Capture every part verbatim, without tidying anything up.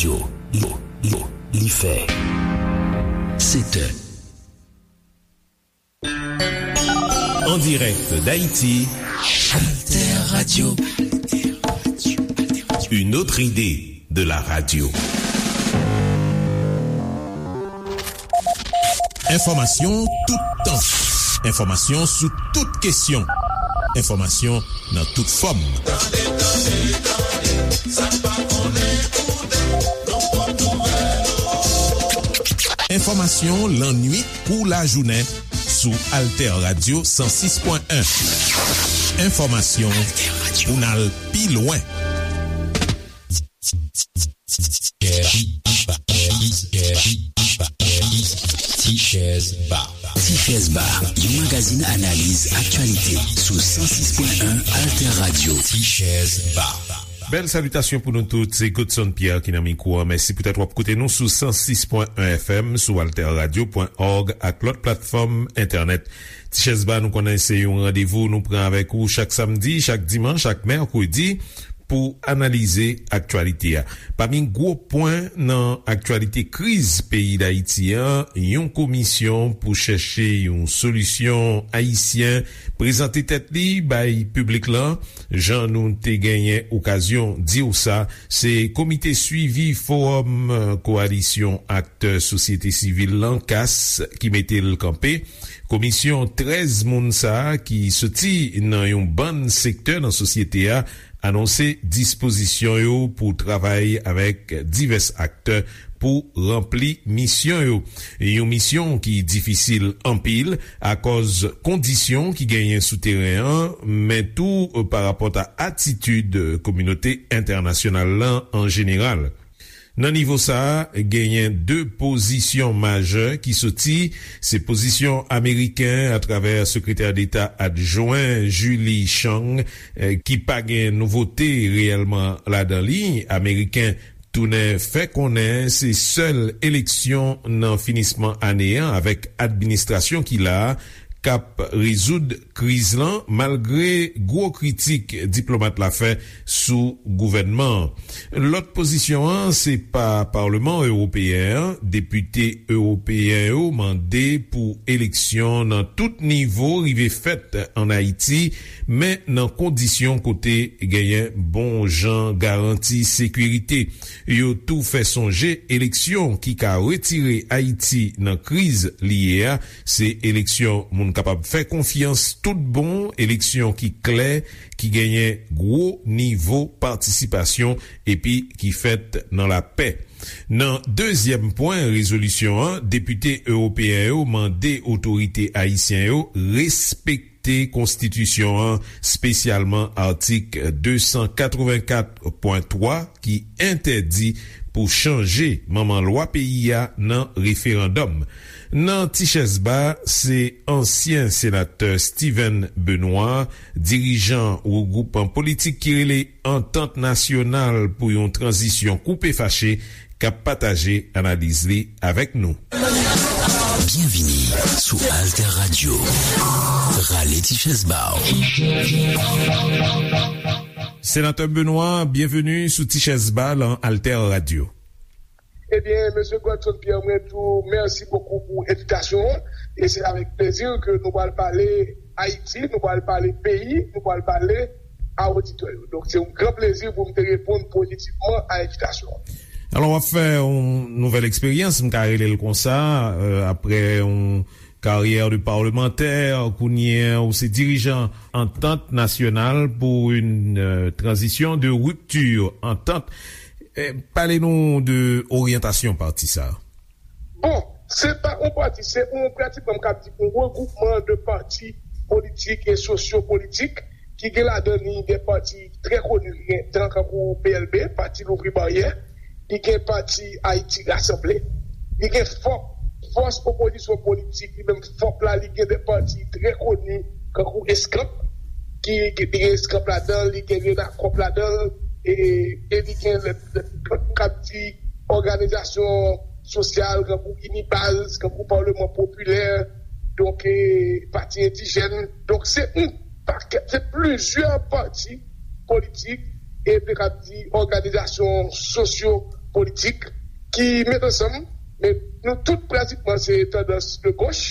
Yo, yo, yo, li fè. Sèt è. En direct d'Haïti, Alter Radio. Une autre idée de la radio. Enfòmasyon toutan. Enfòmasyon sou tout kesyon. Enfòmasyon nan tout fòm. Tande, tande, tande, sa n pa konnen konnen, nou pot nouvèl ou. Enfòmasyon lannwit kou lajounen sou Alter Radio san sis pwen en. Enfòmasyon pou n al pi lwen. Ti Chèz Ba. Ti Chèz Ba, yon magazin analiz aktyalite sou san sis pwen en Alter Radio. Ti Chèz Ba. Bèl salitasyon pou nou tout, se Godson Pierre ki nan mikwo a. Mèsi poutèt w ap koute nou sou san sis pwen en F M, sou alter radio pwen org ak lòt platfòm entènèt. Ti Chèz Ba, nou konnen se yon randevou nou pran avèk ou chak samdi, chak dimanch ak mèkredi pou analize aktyalite a. Pami gwo pwen nan aktyalite kriz peyi Dayiti an, yon komisyon pou chèche yon solisyon ayisyen prezante tèt li bay piblik lan. Jan nou te genyen okazyon di w sa, se Komite Swivi Fowòm, eh, Kowalisyon Aktè Sosyete Sivil lan, kas, ki mete l kanpe. Komisyon trèz moun sa a ki soti nan yon bann sektè nan sosyete a anonse dispozisyon yo pou travay avèk divès aktè pou ranpli misyon yo. Yon misyon ki difisil anpil akòz kondisyon ki genyen sou teren an, men tou, eh, pa rapòt a atitid kominote entènasyonal lan an jeneral. Nan nivo sa a, genyen de pozisyon majè ki soti, se pozisyon ameriken atravè Sekretè Deta Adjwen Julie Chang, eh, ki pa gen nouvote reyèlman ladan li. Ameriken tounen fè konnen se sèl eleksyon nan finisman ane an avèk administrasyon ki la a k ap rezoud kriz lan, malgre gwo kritik diplomat la fè sou gouvènman an. Lòt pozisyon an, se pa Palman Ewopeyen an. Depite ewopeyen yo mande pou eleksyon nan tout nivo rive fèt ann Ayiti, men nan kondisyon kote genyen bon jan garanti sekirite. Yo tou fè sonje eleksyon ki ka retire Ayiti nan kriz li ye a, se eleksyon moun kapab fè konfyans tout bon, eleksyon ki klè, ki genyen gwo nivo patisipasyon epi ki fèt nan lapè. Nan dezyèm pwen rezolisyon an, depite ewopeyen yo mande otorite ayisyen yo respekte konstitisyon an, espesyalman atik de san katrevenkat pwen twa ki entèdi pou chanje manman lwa peyi a nan referandòm. Nan Ti Chèz Ba, se ansyen senatè Steven Benoît, dirijan yon gwoup politik ki rele Antant Nasyonal pou yon Tranzisyon Koupe Fache, k ap pataje analiz li avèk nou. Byenvini sou Alter Radio. Rale ti chèz ba w. Senatè Benoît, byenveni sou Ti Chèz Ba lan Alter Radio. Ebyen, mesye Godson Pierre, mwen di w mèsi bokou pou envitasyon an. E se avèk plezi ke nou pral pale Ayiti, nou pral pale peyi, nou pral pale a oditè yo. Donk, se yon gran plezi pou m te reponn pozitivman a envitasyon an. Alò, w ap fè yon nouvèl eksperyans, m ka rele l konsa, euh, aprè yon karyè de palmantè, kounye a ou se dirijan Antant Nasyonal pou yon, euh, tranzisyon de ripti, Antant. Eh, pale nou de oryantasyon pati sa. Bon, se pa yon pati, se yon, pratikman, m ka di, yon regwoupman de pati politik e sosyo-politik ki gen ladan li de pati trè koni, ki gen tan kankou P L B, Pati Louvri Baryè, li gen pati Ayiti Rasanble, li gen fòk, fòs opozisyon politik, li menm fòk la, li gen de pati trè koni kankou Eskanp, ki, ki li gen Eskanp ladan l, li gen Renakòp ladan l, e, e li gen lè, lè, k ap di òganizasyon sosyal, kankou Inibaz, kankou Palman Popilè, donk, e, Pati Endijèn. Donk, se yon pakèt, se plizyè pati politik, e m te ka di òganizasyon sosyo politik ki met ansanm, men nou tout pratikman se tandans de goch.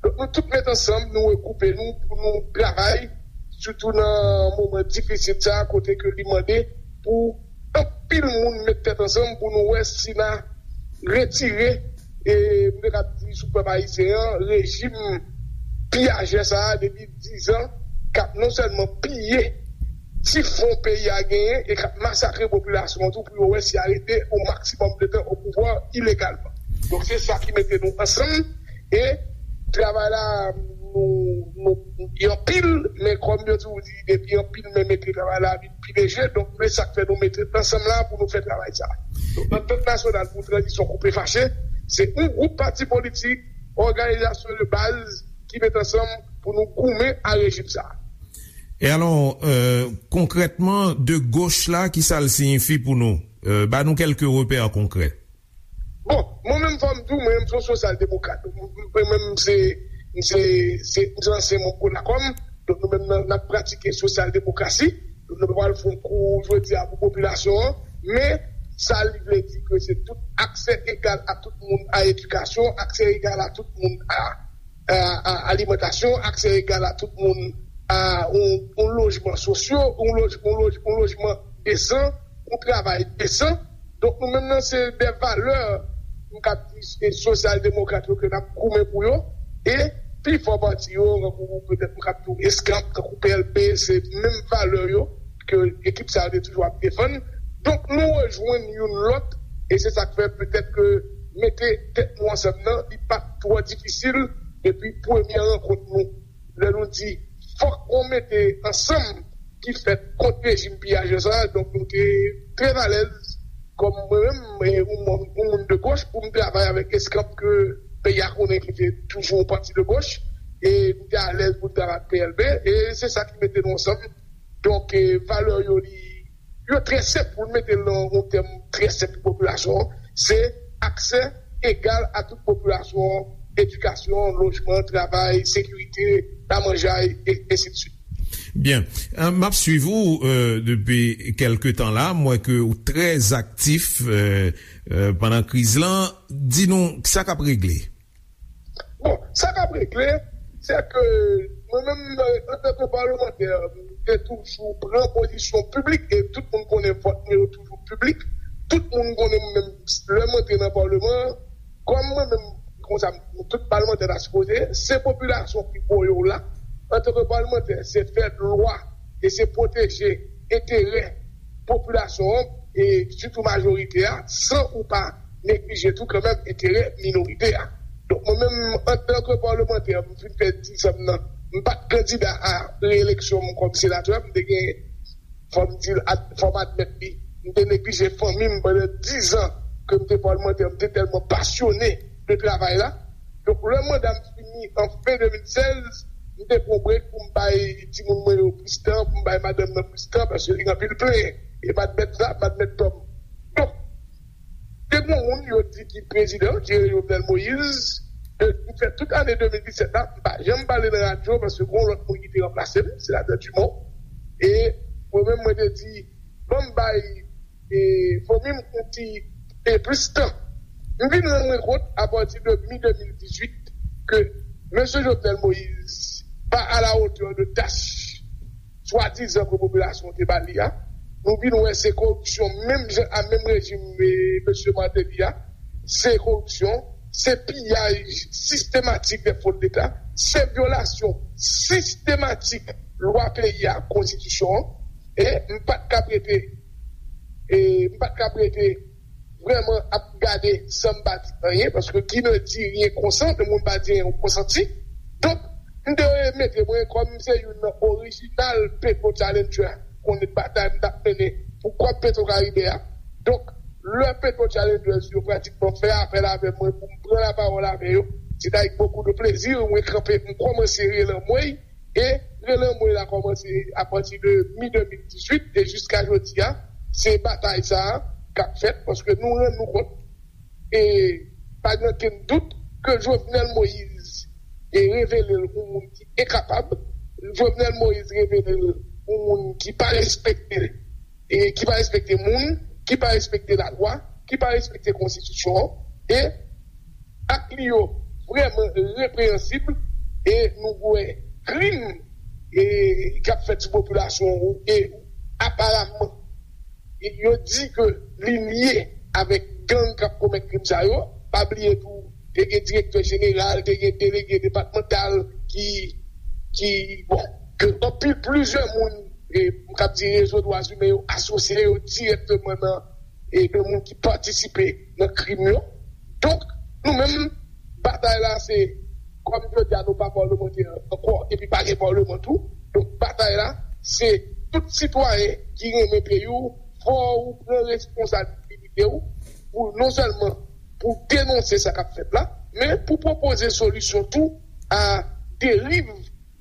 Donk nou tout met ansanm, nou regwoupe nou pou nou travay, sitou nan moman difisil sa a, kote ke li mande pou anpil moun met tèt ansanm pou nou wè si n a retire, e m te kab di sou pèp ayisyen an, rejim piyajè sa a depi diz an, k ap non sèlman piye ti fon peyi a genyen e k ap masakre popilasyon an tou pou yo wè si y a rete o maksimòm de tan o pouvwa ilegalman. Donk se sa ki mete nou ansanm e travay la nou, nou, y anpil, men kòm yo toujou di, depi anpil men mete travay la vin pi leje, donk men sa k fè nou mete ansanm la pou nou fè travay sa. Donk antant nasyonal pou tranzisyon koupe fache, se yon gwoup pati politik, òganizasyon de baz ki met ansanm pou nou goumen a rejim sa. E alò, euh, konkrètman, de goch la, ki sa l siyifi pou nou? Euh, ba nou kèlke repè konkrè. Bon, mwen menm fò m di w, mwen menm se yon sosyal demokrat. Mwen menm se, se, se, se ansyen manm Konakòm. Donk nou menm nan, n ap pratike sosyal demokrasi. Donk nou pa pral fè yon kou jodi a pou popilasyon an. Men sa li vle di ke se tout aksè egal a tout moun a edikasyon, aksè egal a tout moun a a, a alimantasyon, aksè egal a tout moun a yon, yon lojman sosyo, yon loj, yon loj, yon lojman desan, yon travay desan. Donk nou menm nan se de valè m kab di se sosyal demokrat yo ke n ap goumen pou yo. E pi fò pati yo, tankou petèt m kab di w eskanp, tankou P L P, se menm valè yo ke ekip sa yo te toujou ap defann. Donk nou rejwenn youn lòt e se sa k fè petèt ke mete tèt nou ansanm nan, li pa t twò difisil depi premye rankont nou. Lè nou di fòk yon mete ansanm ki fèt kont rejim piyajè sa a, donk nou te trè alèz kòm mwen menm, e, yon moun, yon moun de goch pou m travay avèk eskanp ke peyi a konnen ki te toujou yon pati de goch, e m te alèz pou m travay ak P L P, e se sa ki mete nou ansanm. Donk, e, valè yo, li, yo trè senp, pou n mete l nan yon tèm trè senp pou popilasyon an, se aksè egal a tout popilasyon an, edikasyon, lojman, travay, sekirite, lamanjay, e ensidswit. Byen. Euh, m ap swiv ou, euh, depi kèlke tan la. M wè ke ou trè aktif, euh, euh, pandan kriz lan. Di nou, sa k ap regle? Bon, sa k ap regle, se ke mwen menm, euh, antanke palmantè, m te toujou pran pozisyon piblik, e tout moun konnen vòt mwen yo toujou piblik. Tout moun konnen mwen menm, lè m antre nan palman an, kòm mwen menm, konsa, tout palmantè ta sipoze, se popilasyon ki voye w la. Antanke palmantè, se fè lwa e se pwoteje enterè popilasyon an, e sitou majorite a, san ou pa neglije tou kanmenm enterè minorite a. Donk, mwen menm, antanke palmantè, m fin fè diz an m nan, m pa t kandida a reyeleksyon m kòm senatè, m te gen, fò m di l, ad-, fò m admèt li, m te neglije fanmi m pandan diz an ke m te palmantè, m te tèlman pasyone de travay la. Donk, lè manda m fini an fen de mil sèz, m te pran brek pou m bay timoun mwen yo plis tan, pou m bay madanm nan plis tan, paske li gen anpil plenyen. E m admèt sa, m admèt tò m. Donk, te gen yon moun yo di ki prezidan, ki rele Jovenel Moïse, de, m fè tout ane de mil disèt la, m pa janm pale nan radyo, paske gen yon lòt moun ki te ranplase m, senatè Dumont. E mwen menm, mwen te di, ban m bay e, fanmi m yon ti, e, plis tan. M vin rann mwen kont, apati de mi de mil dizuit, ke mesye Jovenel Moïse pa a la hauteur de tach swadizan ke popilasyon te ba li a. Nou vin wè se koripsyon menm jan a menm rejim, e, mesye Martelly a. Se koripsyon, se piyaj sistematik de fon de leta, se vyolasyon sistematik lwa peyi a, konstitisyon an. E m pa t ka prete e m pa t ka prete vrèman ap gade san m pa di anyen, paske qui ne dit rien consent, le moun pa di anyen, ou konsanti. Donk, m te mete mwen kòm se youn nan orijinal Petro Challenger, konnen batay m t ap mennen pou Kòb Petro Karibe a. Donk, lè Petro Challengers yo pratikman fè apèl avè mwen pou m pran lapawòl avè yo, se t avèk bokou de plezi mwen kanpe, m kòmanse rele anmwey, e rele anmwey la kòmanse apati de mi de mil dizuit e jiska jodi a, se batay sa a k ap fèt, paske nou rann nou kont, e pa gen okenn dout, ke Jovenel Moïse e revele l yon moun ki enkapab, Jovenel Moïse revele l yon moun ki pa respekte, e ki pa respekte moun, ki pa respekte lalwa, ki pa respekte konstitisyon an, e ak li yo vrèman repreyansib, e nou wè krim e k ap fèt sou popilasyon an, e aparamman yo di ke li lye avèk gang k ap komèt krim sa yo. Pa bliye tou, te gen direktè jeneral, te gen delege depatmantal ki, ki bon, ke anpil plizyè moun, e m kab di rezo dwa imen yo asosye yo dirèkteman nan, e de moun ki patisipe nan krim yo. Donk, nou menm, batay la se, kòm jodi a nou pa palmantè ankò, epi pa gen palman tou. Donk, batay la se tout sitwayen ki renmen peyi w, fò ou pran responsabilite w pou non sèlman pou denonse sa k ap fèt la, men pou pwopoze solisyon tou a deriv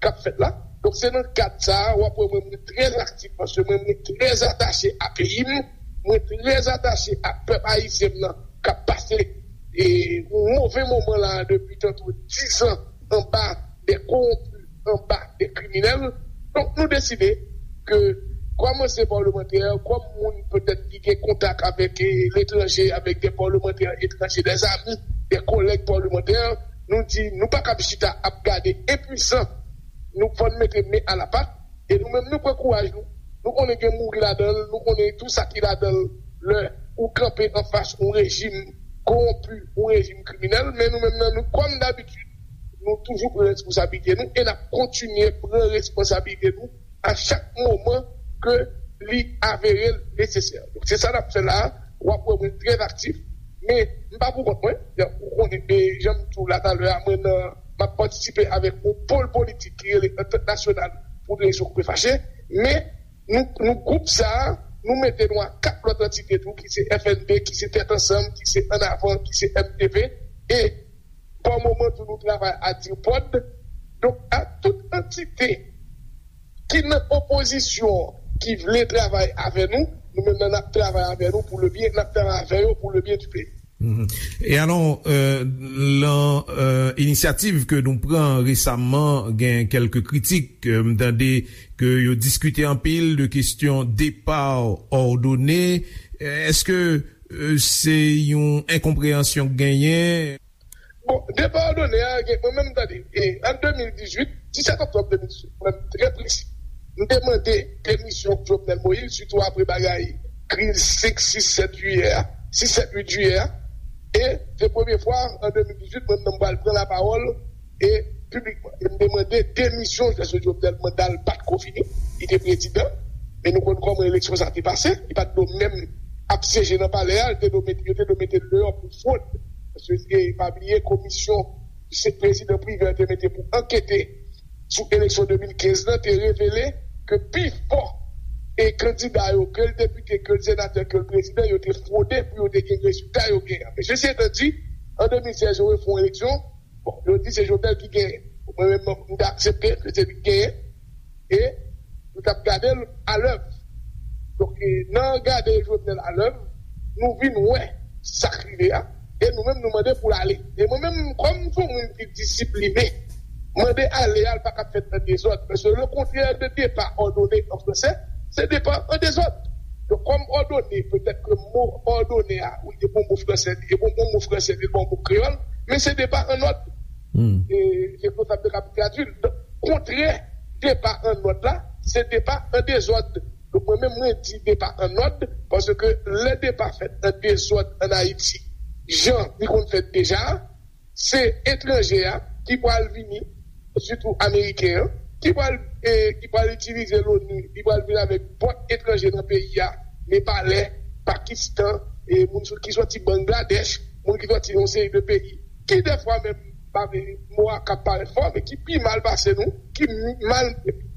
k ap fèt la. Donk, se nan kad sa a, w ap wè mwen, mwen trè aktif, paske mwen, mwen trè atache a peyi m, mwen trè atache a pèp ayisyen m nan, k ap pase e, yon move moman la depi tantou diz an anba de kowonpi, anba de kriminèl. Donk, nou deside ke, kòm ansyen palmantè, kòm moun petèt ki gen kontak avèk e, letranje, avèk de palmantè etranje, de zami, de kolèg palmantè, nou di nou pa kab chita ap gade enpwisan. Nou fò n mete men a la pat. E nou menm, nou pran kouraj nou. Nou konnen gen mouri ladan l, nou konnen tou sa ki ladan l lè ou kanpe anfas yon rejim kowonpi, yon rejim kriminèl, men nou menm nan, nou, kòm dabitid, nou toujou pran responsablite nou e n ap kontinye pran responsablite nou a chak moman ke li avere l nesesè. Donk, se sa n ap fè la a. W ap wè mwen trè aktif, men m pa pou kont mwen. Jan ou konnen, e jan m di w la talè a, mwen nan, m ap patisipe avèk yon pòl politik ki rele Antant Nasyonal pou Rezon Koupe Fache, men nou, nou gwoup sa a, nou mete nou a kat lòt antite tou, ki se F N P, ki se Tèt Ansanm, ki se Ann Avan, ki se M T P, e pa moman tou nou travay a DIRPOD. Donk, a tout antite ki nan opozisyon, ki vle travay avè nou, nou menm nan n ap travay avè nou pou le byen, n ap travay avè yo pou le byen du peyi. Mhm. E alò, euh, lan euh, inisyativ ke nou pran resaman, gen kèlke kritik, euh, m tande ke yo diskite anpil de kesyon depa òdone. Èske euh, se yon enkonpreyansyon k genyen? Bon, depa òdone a, gen, mwen menm, tande, e, an de mil dizuit, disèt oktòb de mil dizuit, mwen menm, trè presi, m te mande demisyon Jovenel Moïse, sitou apre bagay kriz senk, sis, sèt jiyè a, sis, sèt, uit jiyè a. E se premye fwa, an de mil dizuit, mwen menm, m pral pran lapawòl, e piblikman. E m te mande demisyon, paske Jovenel, manda l pa t ko fini, li te prezidan. Men nou konn kòman eleksyon sa te pase, li pa t dwe menm ap syeje nan palè a, li te dwe mete, yo te dwe mete l deyò pou fwod. Paske, e, pa bliye, komisyon se prezidan Privè te mete pou ankete sou eleksyon de mil kenz lan te revele ke pifò e kandida yo, ke l depite, ke l senatè, ke l prezidan, yo te fwode pou yo te gen rezilta yo genyen. Men sesi etan di, an de mil sèz, yo refè yon eleksyon. Bon, yo di se Jovenel ki genyen. Mwen menm, m te aksepte ke se li ki genyen. E nou t ap gade l alèv. Donk, e, nan gade Jovenel alèv, nou vin wè sa k rive a. E nou menm, nou mande pou l ale. E mwen menm, kòm m se yon moun ki disipline, mande ale a, l pa ka fèt an dezòd. Paske le contraire de départ ordonné en français, c'est départ en désordre. Donk, kòm òdone, petèt ke mo òdone a, wi, e bon mo fransè, e bon, bon mo fransè, e bon mo kreyòl, men se depa an nòd. Hmm. E se konsa m te kab tradui l. Donk, kontrè depa an nòd la, se depa an dezòd. Donk, mwen menm, mwen di depa an nòd, paske lè depa fèt an dezòd an Ayiti, jan li konn fèt deja, se etranje a ki pral vini, sitou ameriken an, ki pral, e, ki pral itilize l'ONU, li pral vin avèk vòt etranje nan peyi a, Nepalè, Pakistan, e, moun sou, ki sòti Bangladèch, moun ki sòti yon seri de peyi, ki dèfwa menm, pa vle, mo a ka parèt fò, men ki pi mal pase nou, ki mal,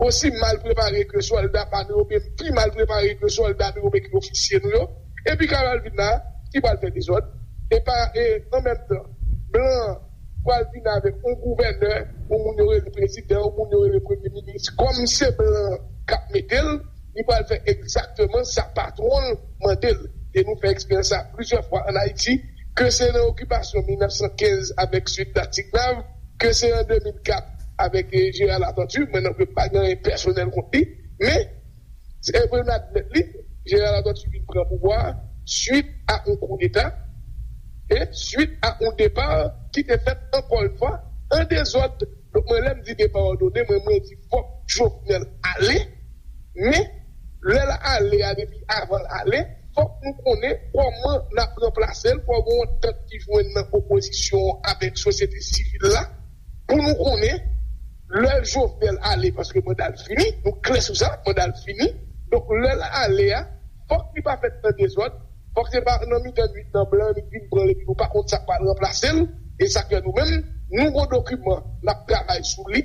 osi mal prepare ke sòlda pa nou yo, oubyen pi mal prepare ke sòlda nou yo, oubyen ke ofisye nou yo, epi Carol vin la, ki pral fè dezòd, e pa, e an menm tan, blan pral vin avèk yon gouvènè, yon moun yo rele prezidan, yon moun yo rele premye minis, kòm se blan k ap mete l, li pral fè egzakteman sa patwon l mande l. E nou fè eksperyans sa plizyè fwa ann Ayiti, ke se nan okipasyon mil nèf san kenz avèk Sweet Datignav, ke se an de mil kat avèk, e, Gérard Latortue, mwen nan pa gen anyen pèsonèl kont li, men, e pou n admèt li, Gérard Latortue vin pran pouvwa a, swit a yon koudeta, e swit a yon depa ki te fèt ankò yon fwa an dezòd. Donk, mwen, lè m di depa òdone, mwen, mwen di fòk Jovenel ale, men lè l ale a, depi avan l ale, fòk nou konnen kòman n ap ranplase l, fòk gen yon antant ki jwenn nan opozisyon an avèk sosyete sivil la, pou nou konnen lè Jovenel ale, paske manda l fini, nou klè sou sa, manda l fini. Donk, lè l ale a, fòk li pa fèt nan dezòd, fòk se pa nan mitan nwit nan blan, li vin pran l epi nou pa konn sa k pral ranplase l. E sa k fè nou menm, nou gon dokiman, n ap travay sou li.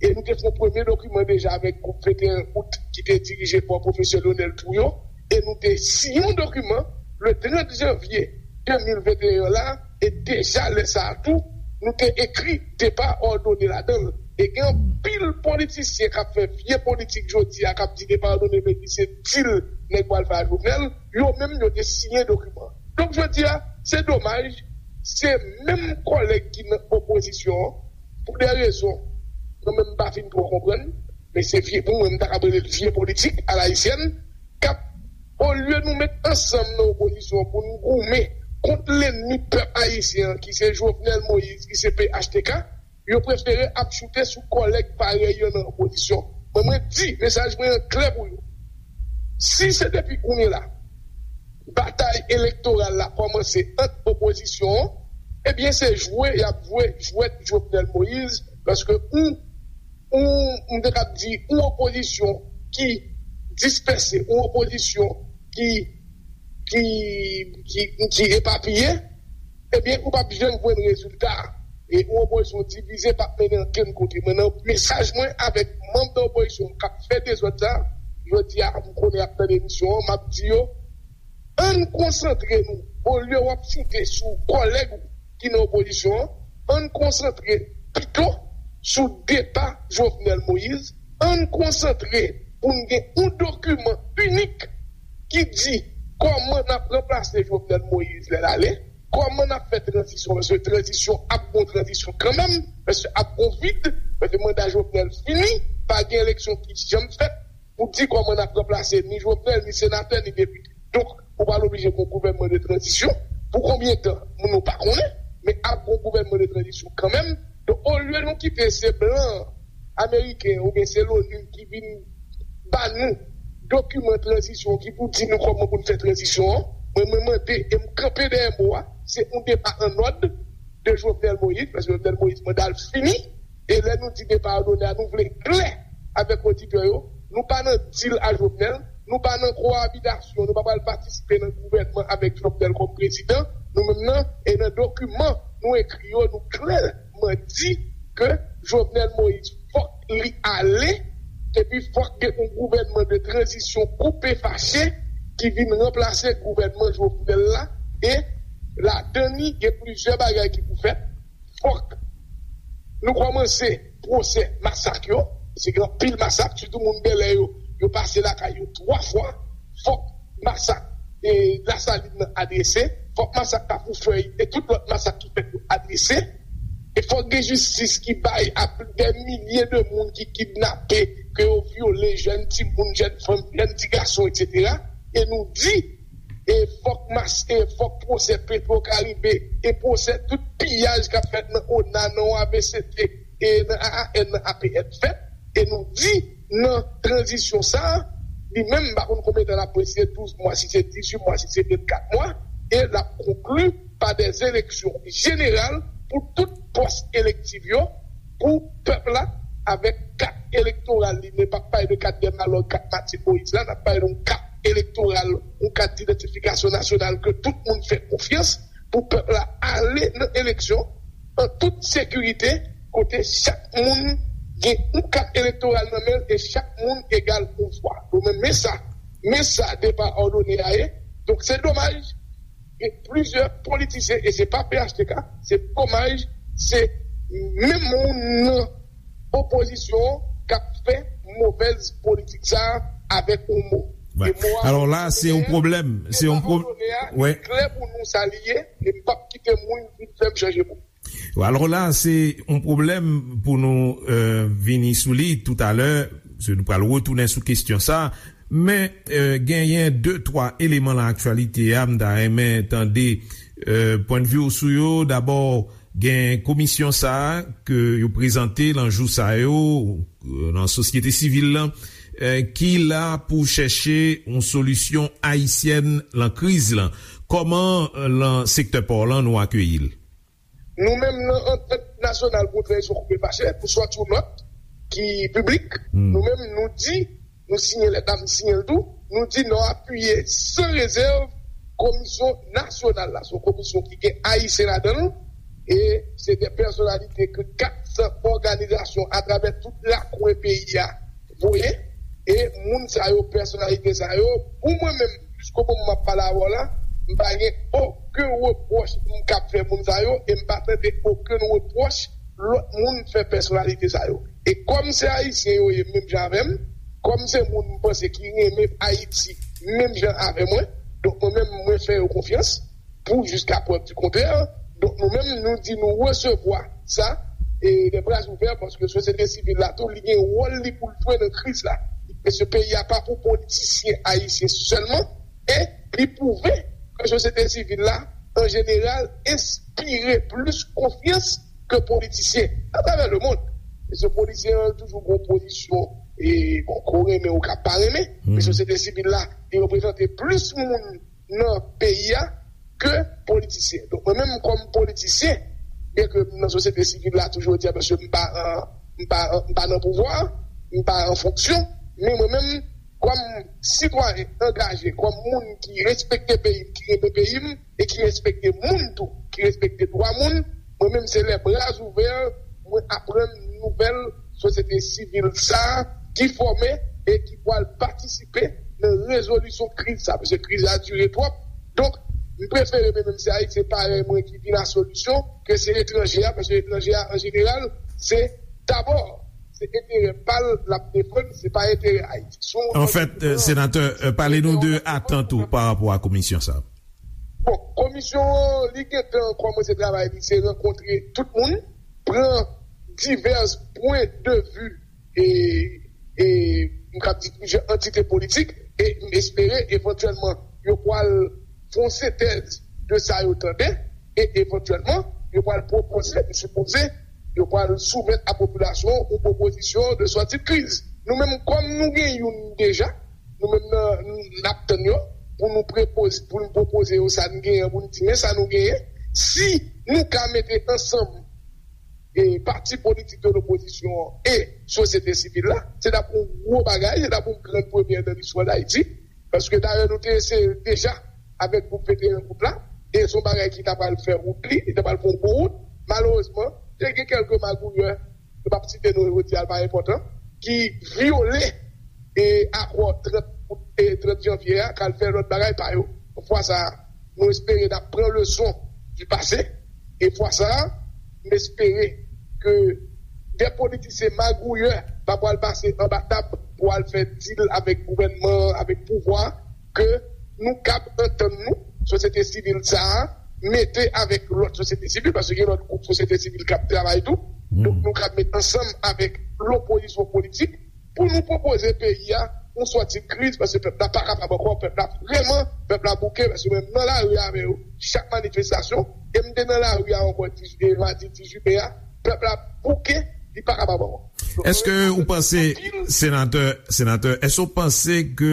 E nou te fè yon premye dokiman deja avèk gwoup venteyen out ki te dirije pa pwofesè Lionel Trouillot. E nou te siyen yon dokiman le trant janvye de mil venteyen la. E deja lè sa a tou, nou te ekri depa òdone ladan l. E gen anpil politisyen k ap fè vye politik jodi a, k ap di depa òdone vle di se dil nèg pral fè a Jovenel. Yo menm, yo te siyen dokiman. Donk, jodi a, se domaj, se menm kòlèg ki nan opozisyon an, pou de rezon, mwen menm m pa fin twò konprann, men se vye, pou mwen, m ta ka rele l vye politik alayisyèn, k ap, olye nou met ansanm nan opozisyon an pou n goumen kont lènmi pèp ayisyen an, ki se Jovenel Moïse, ki se P H T K, yo prefere ap choute sou kòlèg parèy yo nan opozisyon. Mwen, mwen di, mesaj mwen an klè pou yo. Si se depi kounye la, batay elektoral la kòmanse ant opozisyon an, ebyen, se jwe y ap jwe jwèt Jovenel Moïse, paske ou, ou, m te kab di, ou opozisyon ki dispèse, ou opozisyon ki, ki, ki, ki epapiye, ebyen, ou p ap janm jwenn rezilta. E yon opozisyon divize p ap mennen ankenn kote. Mwen, nan mesaj mwen avèk manm nan opozisyon k ap fè dezòd sa, jodi a, m konnen y ap tande emisyon an, m ap di yo, ann konsantre nou, olye w ap choute sou kòlèg ou ki nan opozisyon an, ann konsantre pito sou depa Jovenel Moïse, ann konsantre pou n gen yon dokiman inik ki di kòman n ap ranplase Jovenel Moïse lè l ale, kòman n ap fè tranzisyon, paske tranzisyon ap gon tranzisyon kanmenm, paske ap gon vid, paske manda Jovenel fini, pa gen eleksyon ki janm fèt pou di kòman n ap ranplase ni Jovenel, ni senatè, ni depite. Donk, ou pral oblije gon gouvènman de tranzisyon. Pou konbyen tan, moun nou pa konnen, men ap gon gouvènman de tranzisyon kanmenm. Donk, olye nou kite se blan ameriken oubyen se l'ONU ki vin ba nou dokiman tranzisyon ki pou di nou kòman pou n fè tranzisyon an, mwen, mwen mande e m kanpe dèyè mo a, se yon depa an òd de Jovenel Moïse, paske Jovenel Moïse manda l fini, e lè nou di depa òdone a, nou vle klè avèk oditè yo, nou pa nan dil a Jovenel, nou pa nan kowabitasyon, nou pa pral patisipe nan gouvènman avèk Jovenel kòm prezidan, nou menm nan, e nan dokiman nou ekri yo, nou klèman di ke Jovenel Moïse fòk li ale, epi fòk gen yon gouvènman de tranzisyon koupe fache ki vin ranplase gouvènman Jovenel la, e ladan li gen plizyè bagay ki pou fèt. Fòk nou kòmanse pwosè masak yo, se gen anpil masak, sitou moun Bèlè yo, yo pase lakay yo twa fwa. Fòk masak e Lasalin nan adrese, fòk masak Kafou Fèy e tout lòt masak ki fèt yo adrese. E fòk gen jistis ki bay a dè milye de moun ki kidnape, ke yo vyole, jèn timoun, jèn fanm, jèn ti gason, etsetera. E nou di, e fòk mas, e fòk pwosè Petro Caribe, e pwosè tout piyaj k ap fèt nan ona, nan A V C T, e nan A A N, nan A P N fèt. E nou di, nan tranzisyon sa a, li menm, m pa konn konbyen tan l ap pran, si se douz mwa, si se dizuit mwa, si se vennkat mwa, e l ap konkli pa dè eleksyon jeneral pou tout pòs elektif yo, pou pèp la, avèk kat elektoral li, men p ap pale de kat dè malòg, kat Matye Moyiz la, n ap pale de yon kat elektoral, yon kat didantifikasyon nasyonal ke tout moun fè konfyans, pou pèp la ale nan eleksyon an tout sekirite, kote chak moun gen yon kat elektoral nan men l e chak moun egal yon vwa. Donk, men, men sa, men sa depa òdone a ye. Donk, se domaj, gen plizyè politisyen, e se pa P H T K, se domaj, se menm moun nan opozisyon k ap fè movèz politik sa a avèk yon mo. Wè. E mo a, alò la, se yon pwoblèm. Se yon pwoblèm. Wè. Klè pou nou sa li ye, e m p ap kite moun vin fè m chanje mo. Alò la, se yon pwoblèm pou nou, euh, vini sou li toutalè, se nou pral retounen sou kesyon sa. Men, eh, genyen de, twa eleman nan aktyalite a, m ta renmen tande, eh, pwennvi w sou yo. Dabò, gen komisyon sa a ke yo prezante nan jou sa yo, eh, nan sosyete sivil lan, eh, ki la pou chèche yon solisyon ayisyèn lan kriz lan. Kòman, eh, lan sektè pò lan nou akeyi l? Nou menm nan Antant Nasyonal pou Tranzisyon Koupe Fache, pou sòti yon nòt ki piblik, nou menm nou di, nou siyen lèt la, m siyen l tou, nou di nou apiye san rezèv komisyon nasyonal la. Se yon komisyon ki gen Ayisyen ladan l, e se de pèsonalite ke kat san òganizasyon atravè tout lakwen peyi a voye, e moun sa yo, pèsonalite sa yo, pou mwen menm, jiskomoman m ap pale avè w la, m pa gen okenn repwòch m kab fè moun sa yo, e m pa tande okenn repwòch lòt moun fè pèsonalite sa yo. E kòm se Ayisyen yo ye menm jan avè m, kòm se moun m panse ki renmen Ayiti menm jan avè mwen, donk mwen menm mwen fè yo konfyans, pou jiska prèv di kontrè. Donk nou menm nou di nou resevwa sa, e de bra ouvè, paske sosyete sivil la tou li gen wòl li pou l jwe nan kriz la. Paske peyi a pa pou politisyen ayisyen sèlman, e li pwouve ke sosyete sivil la an jeneral enspire plis konfyans ke politisyen atravè lemonn. Paske politisyen an toujou gen pozisyon, e bon, ke w renmen ou ka pa renmen, men sosyete sivil la li reprezante plis moun nan peyi a ke politisyen. Donk mwen menm kòm politisyen, byen ke m nan sosyete sivil la toujou di a, paske m pa an, m pa an, m pa nan pouvwa, m pa an fonksyon, men mwen menm kòm sitwayen angaje, kòm moun ki respekte peyi m, ki renmen peyi m e ki respekte moun tou, ki respekte dwa moun, mwen menm se lè bra ouvè mwen aprann nouvèl sosyete sivil sa a ki fòme e ki pral patisipe nan rezolisyon kriz sa, paske kriz la dire twòp. Donk, m prefere mwen menm se Ayisyen parèy mwen ki vin a solisyon ke se etranje a, paske etranje a an jeneral se dabò se enterè pa l l ap defann, se pa enterè Ayiti. Anfèt, senatè, pale nou de atant ou pa rapò a komisyon sa a. Bon, komisyon an li gentan kòmanse travay li, se rankontre tout moun, pran divès pwen de vi e, e m kab di plizyè antite politik, e m espere evantyèlman yo pral fè yon sentèz de sa yo tande, e evantyèlman yo pral pwopoze, m sipoze yo pral soumèt a popilasyon yon pwopozisyon de sòti de kriz. Nou menm kòm nou gen youn deja, nou menm nan n ap tann yo pou nou prepoze, pou nou pwopoze yo sa n genyen, pou n di men sa nou genyen. Si nou ka mete ansanm e pati politik de lopozisyon an e sosyete sivil la, se t ap yon gwo bagay, se t ap yon grann premyè nan listwa Dayiti, paske dayè nou te eseye l deja avèk gwoup venteyen out la, e se yon bagay ki ta pral fè wout li, li ta pral fè yon bon wout. Malerezman, te gen kèlke magouyè, m p ap site non yo, jodi a l pa enpòtan, ki vyole e akò trant out e trant janvye a, k al fè lòt bagay pa yo. Fwa sa a, nou espere n ap pran leson di pase, e fwa sa a, m espere ke de politisyen magouyè pa pral pase anba tab pou al fè dil avèk gouvènman an, avèk pouvwa, ke nou kab antann nou, sosyete sivil sa a, mete avèk lòt sosyete sivil, paske gen lòt gwoup sosyete sivil k ap travay tou. Donk, nou kab met ansanm avèk lopozisyon politik pou nou pwopoze peyi a yon sòti kriz, paske pèp la pa kapab ankò, pèp la vrèman, pèp la bouke, paske menm nan lari avè yo, chak manifestasyon, e m te nan lari a ankò, dizuit, e madi dizuit me a, pèp la bouke, li pa kapab ankò. Donk, Èske ou panse, senatè, senatè, èske ou panse ke,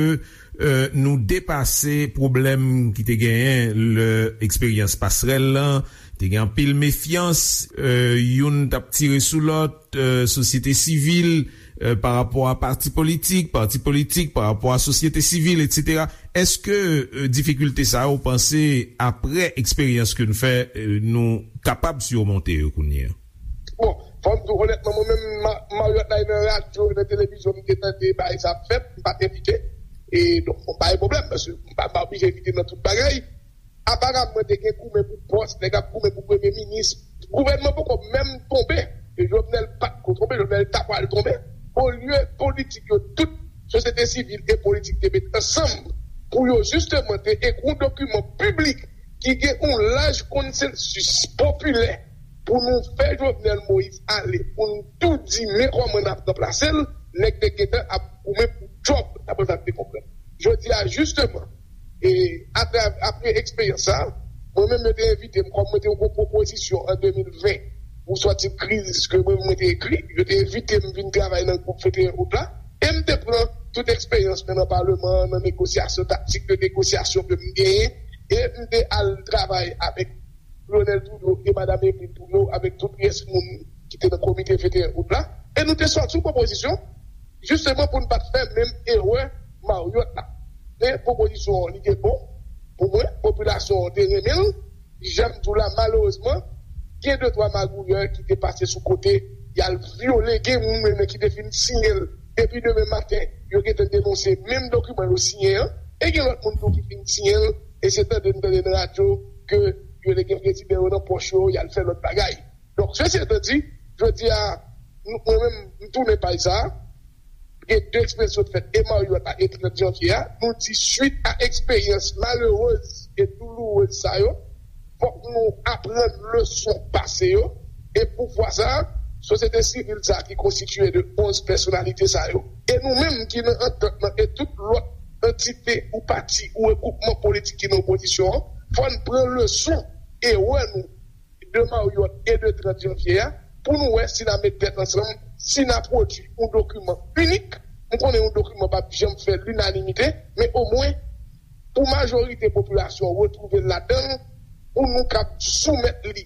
eh, nou depase pwoblèm ki te genyen lè eksperyans pasrèl lan, te gen anpil mefyans, eh, youn t ap tire sou lòt, eh, sosyete sivil, eh, pa rapò a pati politik, pati politik pa rapò a sosyete sivil, etsetera. Èske, eh, difikilte sa yo, ou panse, apre eksperyans ke n fè, eh, nou kapab simonte yo kounye a? Bon, fò m di w onètman, mwen menm, ma- Marriott la nan radyo, nan televizyon, m te tande bagay sa ap fèt, m pa t envite. E donk, bon, pa gen pwoblèm, paske m pa m pa oblije envite nan tout bagay. Aparamman, te gen goumen pou pòs, nèg ap goumen pou premye minis. Gouvènman poko menm tonbe, e Jovenel pa t ko tonbe, Jovenel ta pral tonbe. Olye politik yo, tout sosyete sivil e politik te met ansanm pou yo jisteman te ekri yon dokiman piblik ki gen yon laj konsansis popilè pou nou fè Jovenel Moïse ale, pou nou tou di men kòman n ap ranplase l, nèg te gentan ap goumen pou djòb, daprè sa m te konprann. Jisteman, e apre, apre eksperyans sa, mwen menm yo te envite m, kòm mwen te yon pwopozisyon an de mil ven pou sòti kriz ke mwen, mwen te ekri, yo te envite m vin travay nan gwoup venteyen out la, e m te pran tout eksperyans mwen nan paleman an, nan negosyasyon, taktik de negosyasyon ke m genyen, e m te al travay avèk Lionel Trudeau e Madam Emeline Trudeau, avèk tout pyès moun ki te nan komite venteyen out la, e nou te sòti yon pwopozisyon, jisteman pou n pa t fè menm erè Marriott la. Men pwopozisyon an, li te bon pou mwen, popilasyon an te renmen l. Jan m di w la, malerezman, gen de twa magouyè ki te pase sou kote, y al vyole, gen moun menm ki te fin siyen l. Depi demen maten, yo gentan denonse menm dokiman yo siyen an, e gen lòt moun tou ki fin siyen l, e se tande n tande nan radyo ke yo te gen prezidan yo nan pòch yo, y al fè lòt bagay. Donk, sesi etan di, jodi a, nou, mwen menm, m tounen paj sa a, gen de eksperyans sot fèt, e Marriott la, e trant janvye a, nou di, swit a eksperyans malerez e doulourez sa yo, fòk nou aprann leson pase yo, e pou fwa sa a, sosyete sivil sa a ki konstitiye de onz pèsonalite sa yo, e nou menm ki nan antant lan, e tout lòt antite ou pati ou regwoupman politik ki nan opozisyon an, fò n pran leson erè nou de Marriott e de trant janvye a, pou nou wè si n a met tèt ansanm, si n a pwodui yon dokiman inik. M konnen yon dokiman p ap janm fè linanimite, men omwen, pou majorite popilasyon an retwouve l ladan l, pou nou kab soumèt li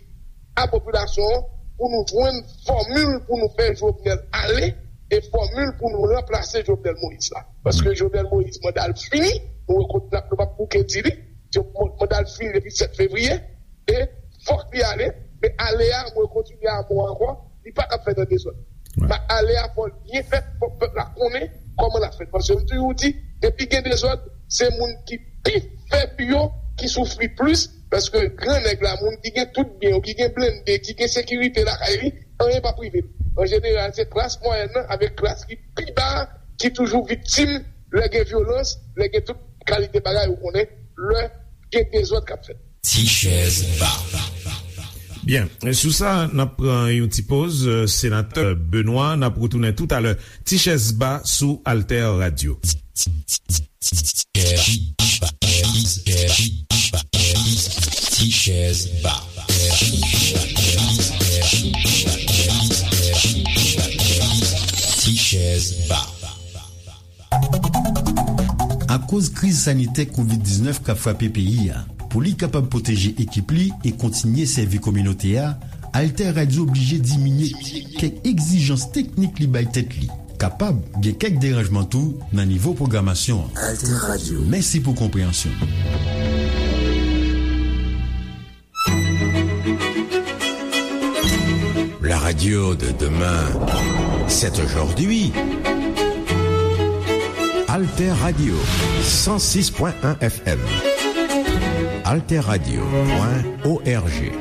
a popilasyon an, pou nou jwenn fòmil pou nou fè Jovenel ale, e fòmil pou nou ranplase Jovenel Moïse la. Paske Jovenel Moïse, manda l fini, nou rekonèt, nou p ap bouke di li, manda l fini depi sèt fevriye, e fòk li ale, men ale a, mwen kontinye a mo ankò, li pa t ap fèt an dezòd. Wi. Men ale a, fò l byen fèt, fòk pèp la konnen kòman l ap fèt. Paske m toujou di, depi gen dezòd, se moun ki pi fèb yo ki soufri plis, paske gran nèg la, moun ki gen tout byen yo, ki gen blende, ki gen sekirite lakay li, anyen p ap rive l. An jeneral, se klas mwayèn nan avèk klas ki pi ba a ki toujou viktim lè gen vyolans, lè gen tout kalite bagay, ou konnen, lè gen dezòd k ap fèt. Ti chèz ba. Byen, sou sa, n ap pran yon ti poz. Senatè Benoît, n ap retounen toutalè. Ti chèz ba sou Alter Radio. Ti chèz ba. Ti chèz ba. Akoz kriz sanitè kovid diznèf k ap frape peyi a, pou li kapab pwoteje ekip li e kontinye sèvi kominote a, Alter Radio oblije diminye kèk egzijans teknik li bay tèt li. Kapab gen kèk deranjman tou nan nivo pwogramasyon an. Alter Radio. Mèsi pou konpreyansyon. La radio de demain, c'est aujourd'hui. Alter Radio, cent six point un F M. Alter Radio point O R G.